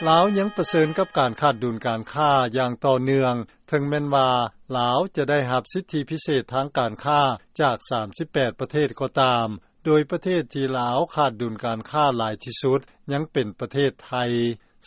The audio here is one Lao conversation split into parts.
ລາວຍັງປະເຊີນກັບການຂາດດຸນການຄ້າຢ່າງຕໍ່ເນື່ອງ ເຖິງແມ່ນວ່າລາວຈະໄດ້ຮັບສິດທິພິເສດທາງການຄ້າຈາກສາມສິບແປດປະເທດກໍຕາມ, ໂດຍປະເທດທີ່ລາວຂາດດຸນການຄ້າຫຼາຍທີ່ສຸດ ຍັງເປັນປະເທດໄທ.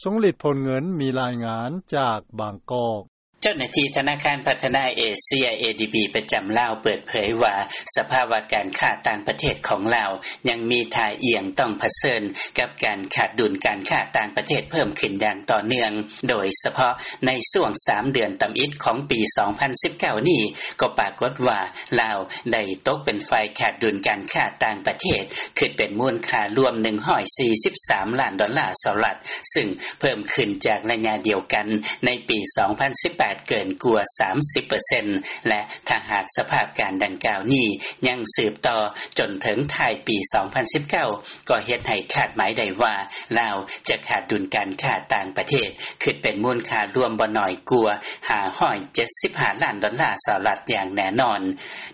ຊົງລິດ ພົນເງິນ ມີລາຍງານຈາກບາງກອກ. ເຈົ້າໜ້າທີ່ທະນາຄານພັດທະນາເອເຊຍ ເອດີບີ ປະຈຳລາວເປີດເຜີຍວ່າ ສະພາວະການຄ້າຕ່າງປະເທດຂອງລາວ ຍັງມີທ່າອ່ຽງຕ້ອງປະເຊີນກັບການຂາດດຸນການຄ້າຕ່າງປະເທດເພີ່ມຂຶ້ນຢ່າງຕໍ່ເນື່ອງ, ໂດຍສະເພາະໃນຊ່ວງສາມເດືອນທຳອິດຂອງປີສອງພັນສິບເກົ້ານີ້ ກໍປາກົດວ່າລາວໄດ້ຕົກເປັນຝ່າຍຂາດດຸນການຄ້າຕ່າງປະເທດ ຄິດເປັນມູນຄ່າລວມໜຶ່ງຮ້ອຍສີ່ສິບສາມລ້ານດອນລາສະຫະລັດ, ຊຶ່ງເພີ່ມຂຶ້ນຈາກໄລຍະດຽວກັນໃນປີສອງພັນສິບແປດເກີນກວ່າສາມສິບເປີເຊັນ ແລະ ຖ້າຫາກສະພາບການດັ່ງກ່າວນີ້ຍັງສືບຕໍ່ຈົນເຖິງທ້າຍປີສອງພັນສິບເກົ້າ ກໍເຮັດໃຫ້ຄາດໝາຍໄດ້ວ່າ ລາວຈະຂາດດຸນການຄ້າຕ່າງປະເທດ ຄິດເປັນມູນຄ່າລວມບໍ່ໜ້ອຍກວ່າຫ້າຮ້ອຍເຈັດສິບຫ້າລ້ານດອນລາສະຫະລັດຢ່າງແນ່ນອນ.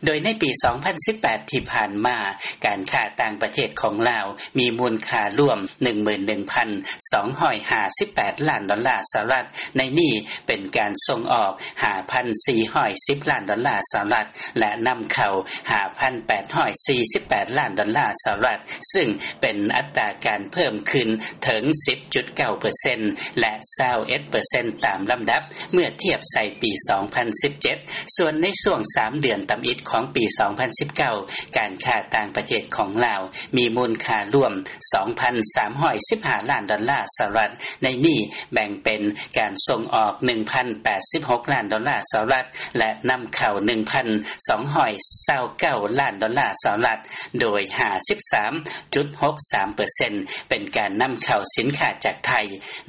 ໂດຍໃນປີສອງພັນສິບແປດທີ່ຜ່ານມາ ການຄ້າຕ່າງປະເທດຂອງລາວມີມູນຄ່າລວມໜຶ່ງໝື່ນໜຶ່ງພັນສອງຮ້ອຍຫ້າສິບແປດລ້ານດອນລາສະຫະລັດ, ໃນນີ້ເປັນການສົ່ງອອກຫ້າພັນສີ່ຮ້ອຍສິບລ້ານດອນລາສະຫະລັດ ແລະ ນຳເຂົ້າຫ້າພັນແປດຮ້ອຍສີ່ສິບແປດລ້ານດອນລາສະຫະລັດ, ຊຶ່ງເປັນອັດຕາການເພີ່ມຂຶ້ນເຖິງສິບຈຸດເກົ້າເປີເຊັນ ແລະ ຊາວເອັດເປີເຊັນຕາມລຳດັບ ເມື່ອທຽບໃສ່ປີສອງພັນສິບເຈັດ. ສ່ວນໃນຊ່ວງສາມເດືອນທຳອິດຂອງປີສອງພັນສິບເກົ້າ ການຄ້າຕ່າງປະເທດຂອງລາວມີມູນຄ່າລວມສອງພັນສາມຮ້ອຍສິບຫ້າລ້ານດອນລາສະຫະລັດ, ໃນນີ້ແບ່ງເປັນການສົ່ງອອກໜຶ່ງພັນແປດສິບຫົກລ້ານດອນລາສະຫະລັດ ແລະ ນຳເຂົ້າໜຶ່ງພັນສອງຮ້ອຍຊາວເກົ້າລ້ານດອນລາສະຫະລັດ, ໂດຍຫ້າສິບສາມຈຸດຫົກສາມເປີເຊັນ ເປັນການນຳເຂົ້າສິນຄ້າຈາກໄທ,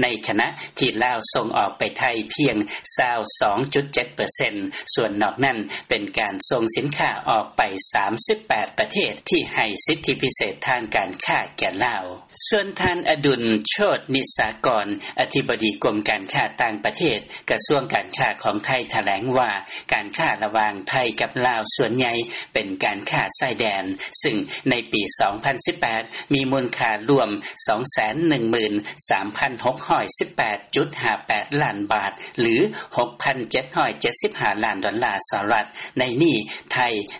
ໃນຂະນະທີ່ລາວສົ່ງອອກໄປໄທພຽງຊາວສອງຈຸດເຈັດເປີເຊັນ, ສ່ວນນອກນັ້ນເປັນການສົ່ງສິນຄ້າອອກໄປສາມສິບແປດປະເທດທີ່ໃຫ້ສິດທິພິເສດທາງການຄ້າແກ່ລາວ. ສ່ວນທ່ານ ອະດຸນ ໂຊດນິສາກອນ ອະທິບໍດີກົມການຄ້າຕ່າງປະເທດ ກະຊວງການຄ້າຂອງໄທ ຖະແຫຼງວ່າ ການຄ້າລະຫວ່າງໄທກັບລາວສ່ວນໃຫຍ່ເປັນການຄ້າຊາຍແດນ, ຊຶ່ງໃນປີສອງພັນສິບແປດ ມີມູນຄ່າລວມສອງແສນໜຶ່ງໝື່ນສາມພັນຫົກຮ້ອຍສິບແປດຈຸດຫ້າແປດລ້ານບາດ ຫຼື ຫົກພັນເຈັດຮ້ອຍເຈັດສິບຫ້າລ້ານດອນລາສະຫະລັດ, ໃນນີ້ໄທ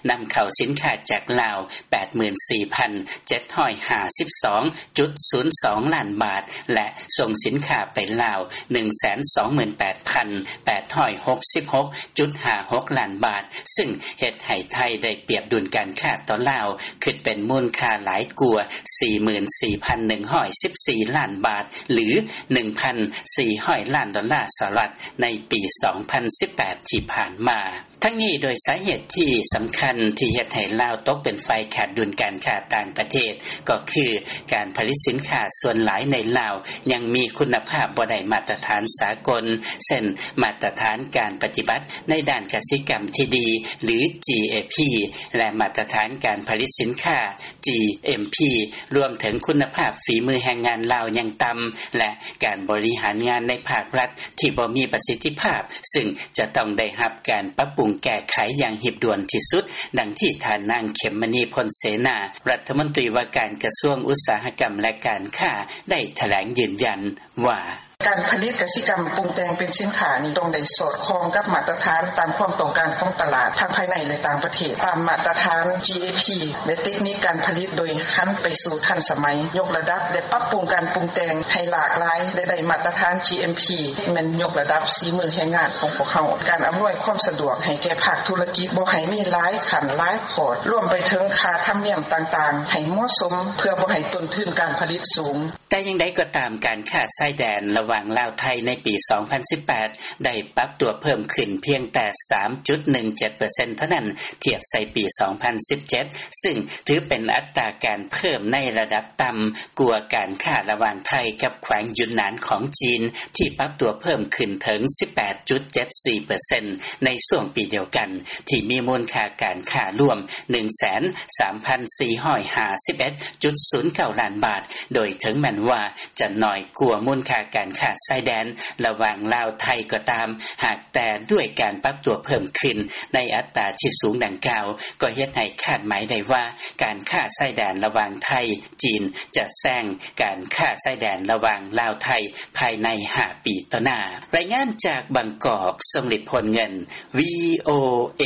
ນຳເຂົ້າສິນຄ້າຈາກລາວ ແປດໝື່ນສີ່ພັນເຈັດຮ້ອຍຫ້າສິບສອງຈຸດສູນສອງລ້ານບາດ ແລະ ສົ່ງສິນຄ້າໄປລາວ ໜຶ່ງແສນສອງໝື່ນແປດພັນແປດຮ້ອຍຫົກສິບຫົກຈຸດຫ້າຫົກລ້ານບາດ, ຊຶ່ງເຮັດໃຫ້ໄທໄດ້ປຽບດຸນການຄ້າຕໍ່ລາວ ຄິດເປັນມູນຄ່າຫຼາຍກວ່າສີ່ໝື່ນສີ່ພັນໜຶ່ງຮ້ອຍສິບສີ່ລ້ານບາດ ຫຼື ໜຶ່ງພັນສີ່ຮ້ອຍລ້ານດອນລາສະຫະລັດ ໃນປີສອງພັນສິບແປດທີ່ຜ່ານມາ. ທັງນີ້ ໂດຍສາເຫດທີ່ສຳຄັນທີ່ເຮັດໃຫ້ລາວຕົກເປັນຝ່າຍຂາດດຸນການຄ້າຕ່າງປະເທດ ກໍຄືການຜະລິດສິນຄ້າສ່ວນຫຼາຍໃນລາວຍັງມີຄຸນນະພາບບໍ່ໄດ້ມາດຕະຖານສາກົນ, ເຊັ່ນ ມາດຕະຖານການປະຕິບັດໃນດ້ານກະສິກຳທີ່ດີ ຫຼື ຈີເອພີ ແລະ ມາດຕະຖານການຜະລິດສິນຄ້າ ຈີເອັມພີ ລວມເຖິງຄຸນນະພາບຝີມືແຮງງານລາວຍັງຕ່ຳ ແລະ ການບໍລິຫານງານໃນພາກລັດທີ່ບໍ່ມີປະສິດທິພາບ, ຊຶ່ງຈະຕ້ອງໄດ້ຮັບການປັບປຸງແກ້ໄຂຢ່າງຮີບດ່ວນທີ່ສຸດ, ດັ່ງທີ່ທ່ານນາງ ເຂັມມະນີ ພົນເສນາ ລັດຖະມົນຕີວ່າການກະຊວງອຸດສາຫະກຳ ແລະ ການຄ້າ ໄດ້ຖະແຫຼງຢືນຢັນວ່າ: ການຜະລິດກະສິກຳປຸງແຕ່ງເປັນສິນຄ້ານີ້ ຕ້ອງໄດ້ສອດຄ່ອງກັບມາດຕະຖານຕາມຄວາມຕ້ອງການຂອງຕະຫຼາດ ທັງພາຍໃນ ແລະ ຕ່າງປະເທດ, ຕາມມາດຕະຖານ ຈີເອພີ ແລະ ເຕັກນິກການຜະລິດ ໂດຍຫັນໄປສູ່ທັນສະໄໝ, ຍົກລະດັບ ແລະ ປັບປຸງການປຸງແຕ່ງໃຫ້ຫຼາກຫຼາຍ ແລະ ໄດ້ມາດຕະຖານ ຈີເອັມພີ ແມ່ນຍົກລະດັບສີມືແຮງງານຂອງພວກເຮົາ. ການອຳນວຍຄວາມສະດວກໃຫ້ແກ່ພາກທຸລະກິດ ບໍ່ໃຫ້ມີຫຼາຍຂັ້ນຫຼາຍຂອດ, ລວມໄປເຖິງຄ່າທຳນຽມຕ່າງໆ ໃຫ້ເໝາະສົມ ເພື່ອບໍ່ໃຫ້ຕົ້ນທຶນການຜະລິດສູງ. ແຕ່ຢ່າງໃດກໍຕາມ, ການຄ້າຊາຍແດນລະຫວ່າງລາວ-ໄທໃນປີສອງພັນສິບແປດ ໄດ້ປັບຕົວເພີ່ມຂຶ້ນພຽງແຕ່ສາມຈຸດໜຶ່ງເຈັດເປີເຊັນເທົ່ານັ້ນ ທຽບໃສ່ປີສອງພັນສິບເຈັດ, ຊຶ່ງຖືເປັນອັດຕາການເພີ່ມໃນລະດັບຕ່ຳກວ່າການຄ້າລະຫວ່າງໄທກັບແຂວງຢຸນນານຂອງຈີນ ທີ່ປັບຕົວເພີ່ມຂຶ້ນເຖິງສິບແປດຈຸດເຈັດສີ່ເປີເຊັນ ໃນຊ່ວງປີດຽວກັນ ທີ່ມີມູນຄ່າການຄ້າລວມໜຶ່ງແສນສາມພັນສີ່ຮ້ອຍຫ້າສິບເອັດຈຸດສູນເກົ້າລ້ານບາດ, ໂດຍເຖິງແມ່ນວ່າຈະໜ້ອຍກວ່າມູນຄ່າການຄ້າ າຊາຍແດນລະຫວ່າງລາວ-ໄທກໍຕາມ, ຫາກແຕ່ດ້ວຍການປັບຕົວເພີ່ມຂຶ້ນໃນອັດຕາທີ່ສູງດັ່ງກ່າວ ກໍເຮັດໃຫ້ຄາດໝາຍໄດ້ວ່າ ການຄ້າຊາຍແດນລະຫວ່າງໄທ-ຈີນ ຈະແຊງການຄ້າຊາຍແດນລະຫວ່າງລາວ-ໄທ ພາຍໃນຫ້າປີຕໍ່ໜ້າ. ລາຍງານຈາກບາງກອກ, ຊົງລິດ ໂພນເງິນ, ວິທຍຸ ເອ